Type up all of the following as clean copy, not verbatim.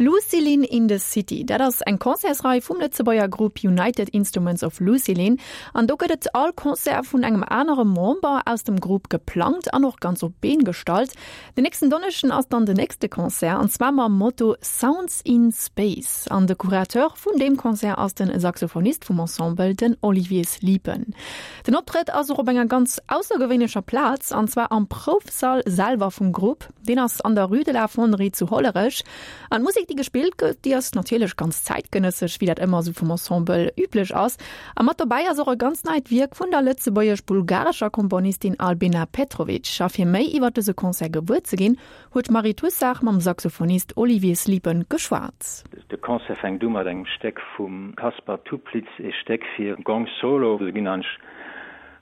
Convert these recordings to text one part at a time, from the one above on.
Lucilin in the City, dat ass eng Concertsrei vum Lëtzebuerger Grupp United Instruments of Lucilin. An do gëtt et all Concert vun engem anere Member aus dem Grupp geplangt an och ganz op d'Been gestallt. Den nächsten Donneschden ass dann den nächste Concert an zwar mam Motto Sounds in Space. An de Curateur vun deem Concert ass den Saxophonist vum Ensemble, den Olivier Sliepen. Den Optrëtt ass och op enger ganz aussergewéinlecher Plaz an zwar am Proufsall selwer vum Grupp. Deen ass an der Rue de la Fonderie zu Hollerech. An d'Musek, déi gespillt gëtt, déi ass natierlech ganz zäitgenëssesch, wéi dat ëmmer esou vum Ensemble üblech ass. A mat dobäi ass och e ganz neit Wierk vun der lëtzebuergesch-bulgarescher Komponistin Albena Petrovic. A fir méi iwwer dëse Concert gewuer ze ginn, huet d'Marie Toussaert mam Saxophonist Olivier Sliepen geschwat. De Concert fänkt u mat engem Stéck vum Kaspar Toeplitz, ee Stéck fir Gong Solo. Do ginn eigentlech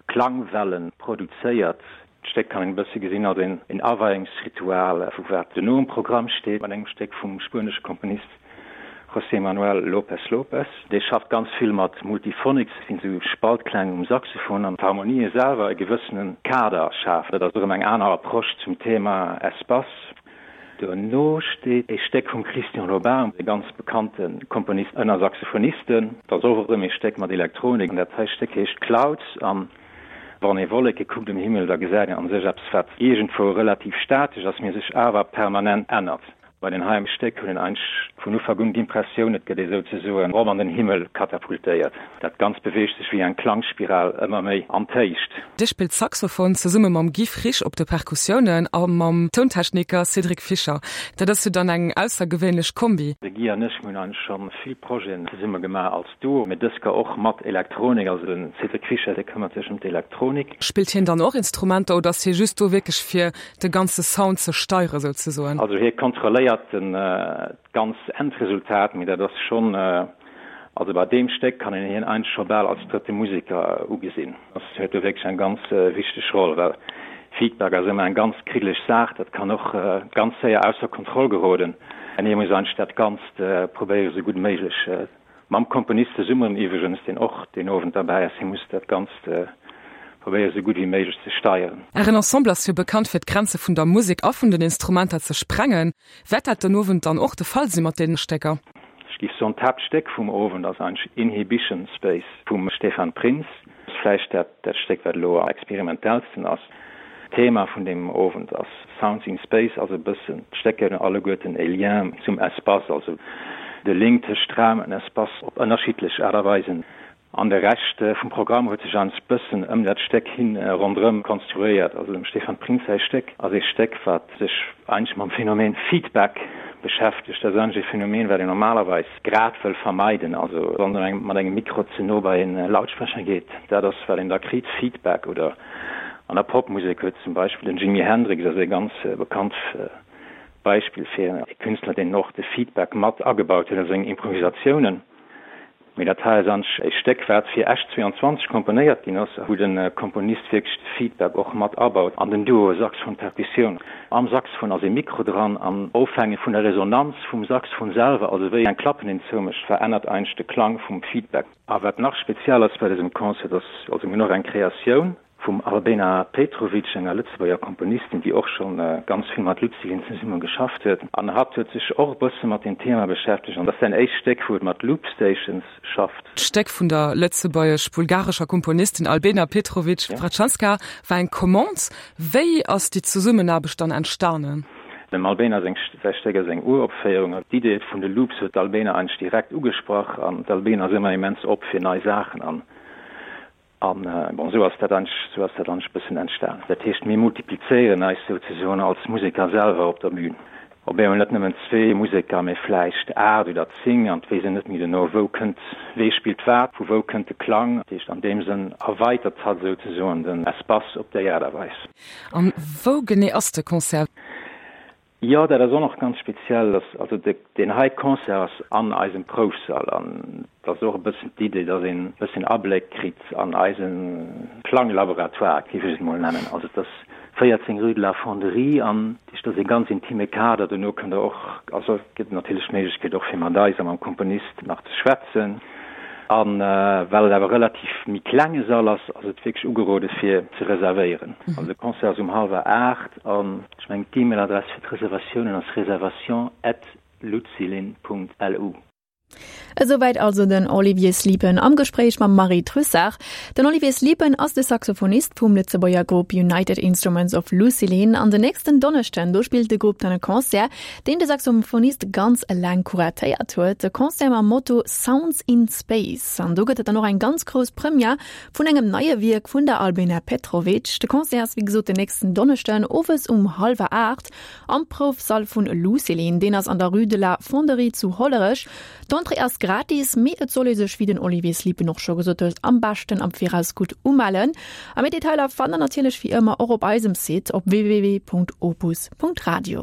Klangwellen produzéiert. D'Stéck kann een e bësse gesinn als een Aweiungsritual vu wat duerno um Programm steet, mat engem Stéck vum spuenesche Komponist José Manuel López López. Dee schafft ganz vill mat Multiphonics, dat sinn esou Spaltkläng um Saxophon, an d'Harmonië selwer e gewëssene Kader schafen. Dat ass erëm eng aner Approche zum Thema Espace. Duerno steet e Stéck vum Christian Lobin, e ganz bekannte Komponist ënner Saxophonisten. Dat ass och erëm e Stéck mat Elektronik, an dat hei Stéck heescht Clouds. An wann ee Wolleke kuckt um Himmel, da gesäit een a sech eppes, wat iergendwou relativ statesch ass, mee sech awer permanent ännert. Bei den heiem Stéck hunn een eigentlech vun Ufank un d'Impressioun, et gëtt ee souzesoen erop an den Himmel katapultéiert. Dat Ganzt beweegt sech wéi eng Klangspiral ëmmer méi an d'Héicht. Dir spillt Saxophon zesumme mam Guy Frisch op de Perkussiounen a mam Tountechniker Cédric Fischer. Dat ass jo dann eng aussergewéinlech Kombi. De Guy an ech, mir hunn eigentlech scho vill Projeten zesumme gemaach als Duo, mee dës Kéier och mat Elektronik. Also de Cédric Fischer, dee këmmert sech ëm d'Elektronik. Spillt hien dann och Instrumenter oder ass hie just do wierklech fir de ganze Sound ze steiere souzesoen. Also hie kontrolléiert den ganz Endresultat, mee dat ass schonn, also bei deem Stéck kann een hien eigentlech scho bal als drëtte Museker ugesinn. Ass huet do wierklech eng ganz wichteg Roll, well Feedback ass ëmmer eng ganz kriddeleg Saach, dat kann och ganz séier ausser Kontroll geroden an hie muss eigentlech dat Ganzt probéiere sou gutt méiglech Mam Komponist zesummen iwwregens, deen och deen Owend derbäi ass. Hie muss dat Ganzt probéieren, esou gutt wéi méiglech ze steieren. Ären Ensemble ass jo bekannt fir d'Grenze vun der Musek a vun den Instrumenter ze sprengen. Wäert dat den Owend dann och de Fall si mat deene Stécker? Ech géif soen, d'Haaptstéck vum Owend ass eigentlech Inhibition Space vum Stefan Prinz. Ass vläicht dat dat Stéck, wat elo am experimentellsten ass. D'Thema vun deem Owend ass Sounds in Space, also e bëssen d'Stécker hunn alleguerten e Lien zum Espace, also de Link tëscht Raum an Espace op ënnerschiddlech Aart a Weisen. An de Rescht vum Programm huet sech eigentlech bëssen ëm dat Stéck hin ronderëm konstruéiert. Also dem Stefan Prinz säi Stéck ass ee Stéck, wat sech eigentlech mam Phänomen Feedback beschäftegt. Dat ass eigentlech e Phänomen, wat een normalerweis grad wëll vermeiden, also wann een mat engem Mikro ze no bei en Lautsprecher geet, dat ass wat een da kritt, Feedback. Oder an der Popmusek huet zum Beispill den Jimi Hendrix ass e ganz bekannt Beispill fir e Künstler, deen och de Feedback mat agebaut huet a seng Improvisatiounen. Mee dat hei ass anch e Stéck, wat fir Esch 22 komponéiert ginn ass, wou de Komponist wierklech de Feedback och mat abaut an den Duo Saxophon-Perkussioun. Am Saxophon ass ee Mikro dran an ofhängeg vun der Resonanz vum Saxophon selwer, also wéi eng Klappen een zoumécht, verännert eigentlech de Klang vum Feedback. A wat nach speziell ass bei dësem Concert, ass, also mir hunn och eng Kreatioun vum Albena Petrovic, enger Lëtzebuerger Komponistin, déi och scho ganz vill mat Lucilin zesumme geschafft huet. An hatt huet sech och e bësse mat deem Thema beschäftegt an dat ass säin éischt Stéck, wou et mat Loop Stations schafft. D'Stéck vun der lëtzebuergesch-bulgarescher Komponistin Albena Petrovic Vratchanska war eng Commande. Wéi ass déi Zesummenaarbecht dann entstanen? Dem Albena seng säi Stéck ass eng Uropféierung. D'Idee vun de Loops huet d'Albena eigentlech direkt ugesprach an d'Albena ass ëmmer immens op fir nei Saachen an an bon esou ass dat eigentlech esou ass dat eigentlech e bëssen entstan. Dat heescht mir multiplizéieren eis souzesoen als Museker selwer op der Bühn. Op eemol net nëmmen zwee Museker, mee vläicht 8 oder 10 an d'weess een net méi duerno wou kënnt, wee spillt wat, vu wou kënnt de Klang. Dat heescht an deem Sënn erweitert hatt souzesoen den Espace op déi Aart a Weis. An wou genee ass de Concert? Jo, dat ass och nach ganz speziell, dass also deen hei Concert ass an eisem Proufsall an et ass och e bëssen d'Idee, dass een e bëssen Abléck kritt an eise Klanglaboratoire, géif ech et mol nennen. Also et ass 14 rue de la Fonderie an dat ass ee ganz intime Kader. Dono kënnt der och, also et gëtt natierlech d'Méiglechkeet och fir mat eis a mam Komponist nach ze schwätzen. A well et awer relativ méi klenge Sall ass, ass et wierklech ugerode fir ze reservéieren. Also de Concert ass um hallwer 8 an ech mengen d'E-Mail-Adress fir d'Reservatiounen ass reservation at. lucilin.lu. Esouwäit also den Olivier Sliepen am Gespréich mam Marie Trussart. Den Olivier Sliepen ass de Saxophonist vum Lëtzebuerger Grupp United Instruments of Lucilin an den nächsten Donneschden do spillt de Grupp dann e Concert, deen de Saxophonist ganz eleng kuratéiert huet. E Concert mam Motto Sounds in Space an do gëtt et dann och eng ganz grouss Première vun engem neie Wierk vun der Albena Petrovic. De Concert ass wéi gesot den nächsten Donneschden owes um hallwer 8 Am Proufsall vun Lucilin, deen ass an der Rue de la Fonderie zu Hollerech. D'Entrée ass gratis, mee et soll ee sech, wéi den Olivier Sliepen och scho gesot huet, am beschten am Viraus gutt umellen. A méi Detailer fannt der natierlech wéi ëmmer och op eisem Site op www.opus.radio.